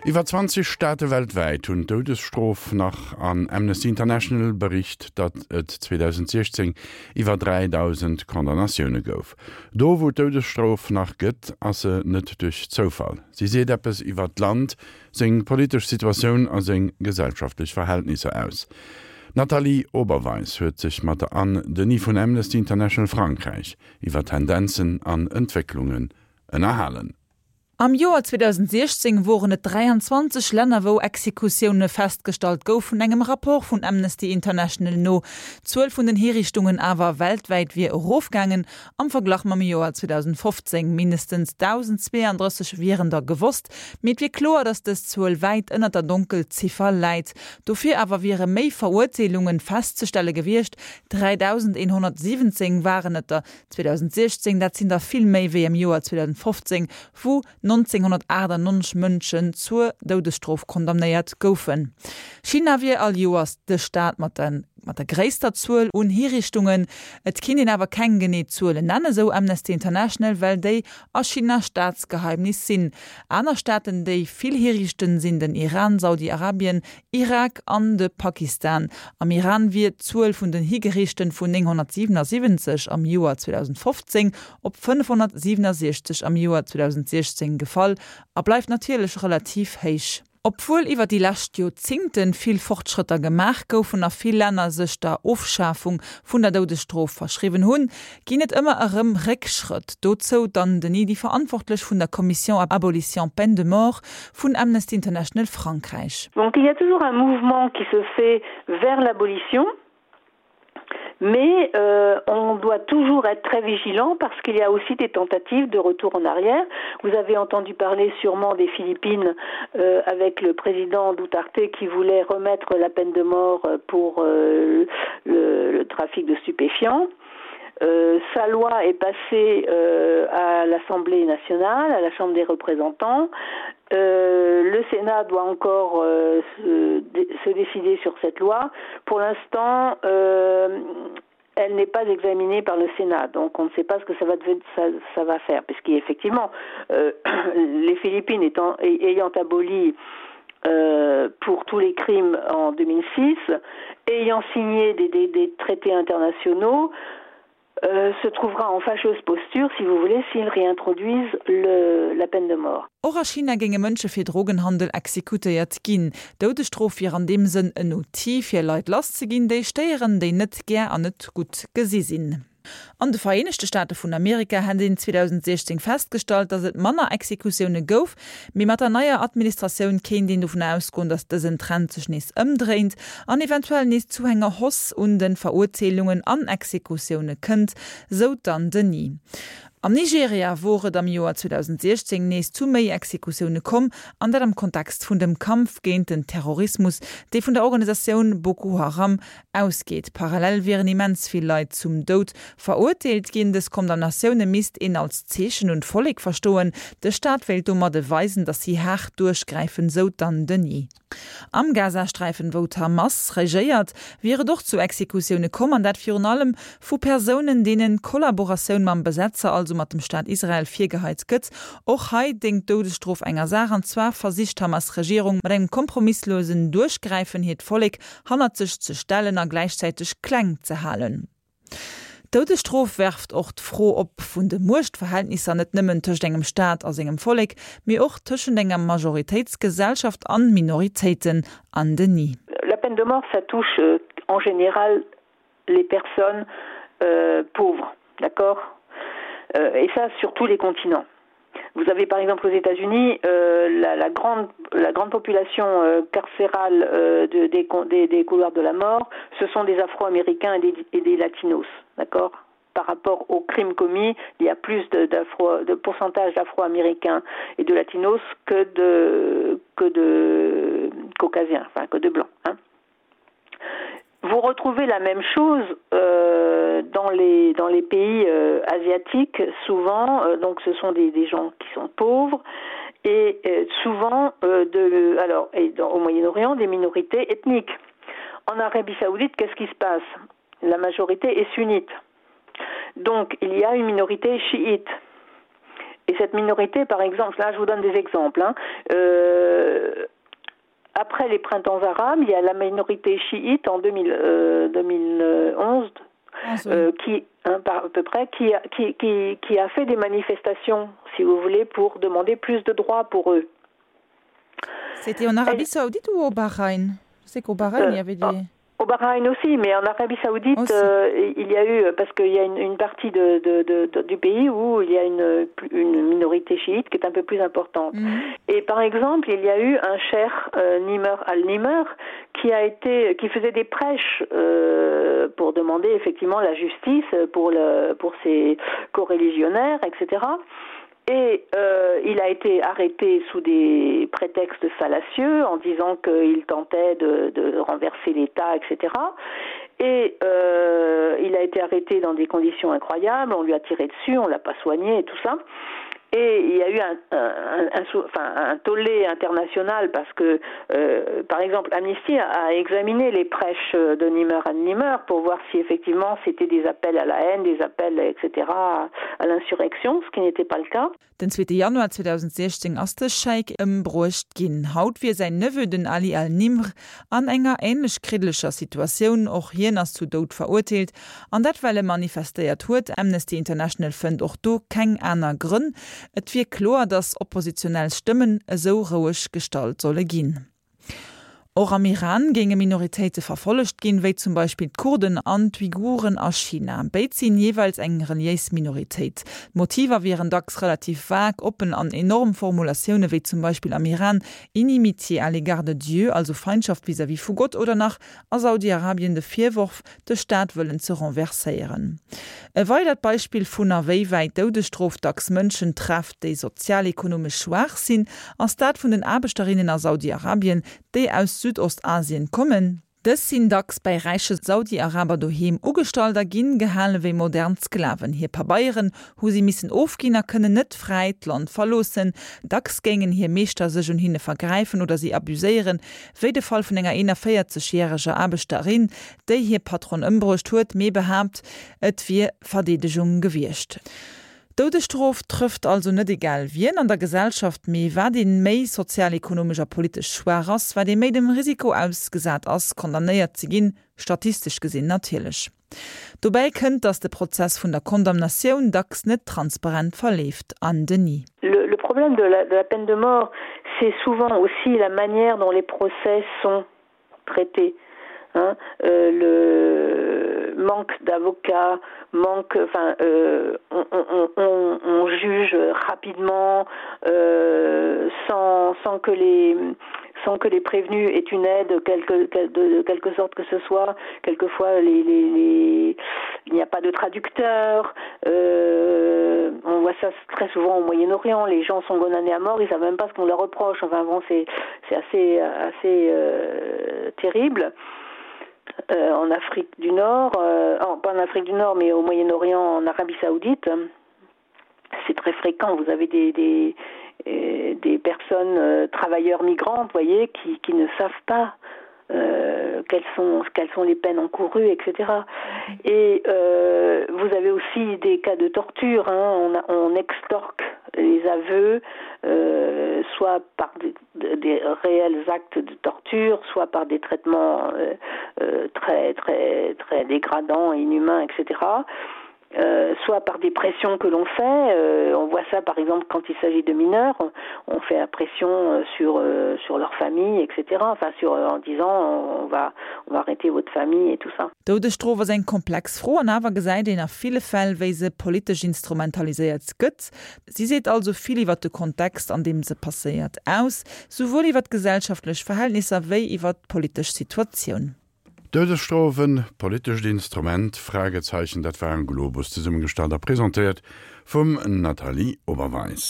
Iwwer 20 Staate weltwäit hunn d'Doudesstrof nach an Amnesty International bericht, datt et 2016 iwwer 3.000 Condamnatioune gouf. Do wou d'Doudesstrof nach gëtt, ass se net duerch Zoufall. Si seet eppes iwwer d'Land, seng politesch Situatioun a seng gesellschaftlech Verhältnisser aus. D'Nathalie Oberweis huet sech mat der Anne Denis vun Amnesty International Frankräich iwwer Tendenzen an Entwécklungen ënnerhalen. Am Joer 2016 woren et 23 Länner wou Exekutioune festgestallt goufen, engem Rapport vun Amnesty International no. D'Zuel vun den Hiriichtungen awer weltwäit wier erofgaangen am Verglach mam Joer 2015. Mindestens 1.032 wieren der gewosst, mee et wier kloer, datt dës Zuel wäit ënnert der Donkelziffer läit. Dofir awer wiere méi Verurteelunge festzestelle gewiescht, 3.117 waren et der 2016, dat sinn der vill méi wéi am Joer 2015, wou 1998 Mënschen zur Doudesstrof condamnéiert goufen. China wier all Joers de Staat mat der mat der gréisster Zuel un Hiriichtungen. Et kinnt een awer keng genee Zuelen nennen, esou Amnesty International, well déi a China Staatsgeheimnis sinn. Aner Staaten, déi vill hiriichten, sinn den Iran, Saudi-Arabien, Irak an de Pakistan. Am Iran wier d'Zuel vun den Higeriichten vun 977 am Joer 2015 op 567 am Joer 2016 gefall a bleift natierlech relativ héich. Obwuel iwwer déi lescht Joerzingten vill Fortschrëtter gemaach goufen a vill Länner sech der Ofschafung vun der Doudesstrof verschriwwen hunn, ginn et ëmmer erëm Réckschrëtt. Dozou d'Anne Denis, déi Verantwortlech vun der Commission Abolition Peine de Mort vun Amnesty International Frankräich. Donc il y a toujours un mouvement qui se fait vers l'abolition, mais euh, on doit toujours être très vigilant parce qu'il y a aussi des tentatives de retour en arrière. Vous avez entendu parler sûrement des Philippines euh, avec le président Duterte qui voulait remettre la peine de mort pour euh, le, le trafic de stupéfiants. Euh, sa loi est passée euh, à l'Assemblée nationale, à la Chambre des représentants. Euh, le Sénat doit encore euh, se, se décider sur cette loi. Pour l'instant, euh, elle n'est pas examinée par le Sénat, donc on ne sait pas ce que ça va, ça, ça va faire, puisqu'effectivement, euh, les Philippines étant, ayant aboli euh, pour tous les crimes en 2006, ayant signé des, des, des traités internationaux, euh, se trouvera en fâcheuse posture, si vous voulez, s'ils réintroduisent le, la peine de mort. Och a China géinge Mënsche fir Drogenhandel exekutéiert ginn. D'Doudesstrof wier an deem Sënn en Outil, fir Leit lass ze ginn, déi stéieren, déi net gär an net gutt gesi sinn. An de Vereenegte Staate vun Amerika hätt een 2016 festgestallt, datt et manner Exekutioune gouf, mee mat der neier Administratioun kéint een dovun ausgoen, datt dësen Trend sech nees ëmdréint an eventuell nees zu enger Hausse un de Verurteelungen an Exekutioune kënnt, sou d'Anne Denis. Am Nigeria wor et am Joer 2016 nees zu méi Exekutioune komm, an dat am Kontext vun dem Kampf géint den Terrorismus, dee vun der Organisatioun Boko Haram ausgeet. Parallel wieren immens vill Leit zum Doud verurteelt ginn. Dës Condamnatioune misst een als Zeechen un d'Vollek verstoen. De Staat wéilt domadde weisen, datt si haart duerchgräifen, sou d'Anne Denis. Am Gazasträifen, wou d'Hamas regéiert, wier et och zu Exekutioune komm, an dat virun allem vu Persounen, deenen Kollaboratioun mam Besetzer, also mat dem Staat Israel, virgeheit gëtt. Och hei déngt d'Doudesstrof enger Saach, an zwar versicht d'Hamas-Regierung mat engem kompromisslosen Duerchgräifen hiert Vollek hannert sech ze stellen a gläichzäiteg kleng ze halen. D'Doudesstrof werft och d'Fro op vun de Muechtverhältnisser, net nëmmen tëscht engem Staat a sengem Vollek, mee och tëschent enger Majoritéitsgesellschaft an Minoritéiten. Anne Denis. La peine de mort, ça touche en général les personnes euh, pauvres, d'accord euh, Et ça sur tous les continents. Vous avez par exemple aux États-Unis euh, la, la, grande, la grande population euh, carcérale euh, de, des, des, des couloirs de la mort, ce sont des Afro-Américains et des, et des Latinos, d'accord par rapport aux crimes commis, il y a plus de, de pourcentage d'afro-américains et de latinos que de, que de caucasiens, enfin que de blancs. Hein. Vous retrouvez la même chose euh, dans, les, dans les pays euh, asiatiques souvent euh, donc ce sont des, des gens qui sont pauvres et euh, souvent euh, de, alors, et dans, au Moyen-Orient des minorités ethniques. En Arabie saoudite, qu'est-ce qui se passe La majorité est sunnite. Donc il y a une minorité chiite. Et cette minorité, par exemple, là je vous donne des exemples hein, euh, après les printemps arabes, il y a la minorité chiite en 2000, euh, 2011 ah, euh, qui hein, par, à peu près qui a, qui, qui, qui a fait des manifestations, si vous voulez, pour demander plus de droits pour eux. C'était en Arabie Saoudite ou au Bahreïn? Je sais qu'au Bahreïn, euh, il y avait des... Oh. Au Bahreïn aussi, mais en Arabie Saoudite, euh, il y a eu parce qu'il y a une, une partie de, de, de, de, du pays où il y a une, une minorité chiite qui est un peu plus importante. Mmh. Et par exemple, il y a eu un cher euh, Nimr al-Nimr qui a été qui faisait des prêches euh, pour demander effectivement la justice pour, le, pour ses coreligionnaires, etc. Et euh, il a été arrêté sous des prétextes fallacieux en disant qu'il tentait de, de renverser l'État, etc. Et euh, il a été arrêté dans des conditions incroyables, on lui a tiré dessus, on l'a pas soigné et tout ça. Et il y a eu un, un, un, enfin, un tollé international parce que, euh, par exemple, Amnesty a, a examiné les prêches de Nimmer à Nimmer pour voir si effectivement c'était des appels à la haine, des appels, etc. à, à l'insurrection, ce qui n'était pas le cas. Den zweete Januar 2016 ass de Scheik ëmbruecht ginn. Haut wier säin Neveu, den Ali al-Nimr, an enger änlech kriddeleger Situatioun. Och hien ass zu Doud verurteelt, an dat well e manifestéiert huet. Amnesty International fënnt och do keng aner Grënn. Et wier kloer, datt oppositionell Stëmmen esou roueg gestallt solle ginn. Och am Iran géinge Minoritéite verfollegt ginn, wéi zum Beispill d'Kurden an d'Uiguren a China. Béid sinn jeeweils eng reliéis Minoritéit. D'Motiver wieren dacks relativ vag, oppen an enorm Formulatioune wéi zum Beispill am Iran Inimitié à l'égard de Dieu, also Feindschaft vis-à-vis vu Gott, oder nach a Saudi-Arabien de Virworf, de Staat wëllen ze renverséieren. E weidert Beispill vun a wéi wäit d'Doudesstrof dacks Mënschen trefft, déi sozial-ekonomesch schwaach sinn, ass dat vun den Aarbechterinnen a Saudi-Arabien, déi aus Südostasien kommen. Dës sinn dacks bäi räiche Saudi-Araber doheem ugestallt a ginn gehale wéi modern Sklaven. Hir Pabeieren hu si missen ofginn a kënnen net fräi d'Land verloossen. Dacks géingen hir Meeschter sech un hinne vergräifen oder si abuséieren, wéi de Fall vun enger 41 järeger Aarbechterin, déi hir Patron ëmbruecht huet, mee behaapt, et wier Verdeedegung gewiescht. D'Doudesstrof trëfft also net egal wien an der Gesellschaft, mee wat ee méi sozial-ekonomesch a politesch schwaach ass, wat ee méi dem Risiko ausgesat ass, condamnéiert ze ginn, statistesch gesinn natierlech. Dobäi kënnt, datt de Prozess vun der Condamnatioun dacks net transparent verleeft. Anne Denis. Le problème de la, de la peine de mort, c'est souvent aussi la manière dont les procès sont traités. Hein, euh, le manque d'avocats, manque enfin euh, on, on, on, on juge rapidement euh, sans, sans que les sans que les prévenus aient une aide quelque, de, de quelque sorte que ce soit quelquefois les, les, les il n'y a pas de traducteur euh, on voit ça très souvent au Moyen-Orient les gens sont condamnés à mort ils savent même pas ce qu'on leur reproche enfin bon c'est assez assez euh, terrible euh, en Afrique du Nord euh, en, pas en Afrique du Nord mais au Moyen-Orient en Arabie Saoudite c'est très fréquent vous avez des, des euh, des personnes euh, travailleurs migrantes voyez qui, qui ne savent pas euh, quelles sont quelles sont les peines encourues etc et euh, vous avez aussi des cas de torture hein, on, a, on extorque les aveux euh, soit par des, des réels actes de torture soit par des traitements euh, euh, très très très dégradants inhumains etc et euh, soit par des pressions que l'on fait euh, on voit ça par exemple quand il s'agit de mineurs on fait la pression euh, sur euh, sur leur famille etc enfin sur euh, en disant on va on va arrêter votre famille et tout ça D'Doudesstrof ass eng komplex Fro an awer gesäit een a ville Fäll, wéi se politesch instrumentaliséiert gëtt. Si seet also vill iwwer de Kontext, an deem se passéiert, aus, souwuel iwwer d'gesellschaftlech Verhältnisser wéi iwwer d'politesch Situatioun. D'Doudesstrof, en politescht Instrument? Fragezeichen, Dat war en Globus, zesummegestallt a presentéiert vum Nathalie Oberweis.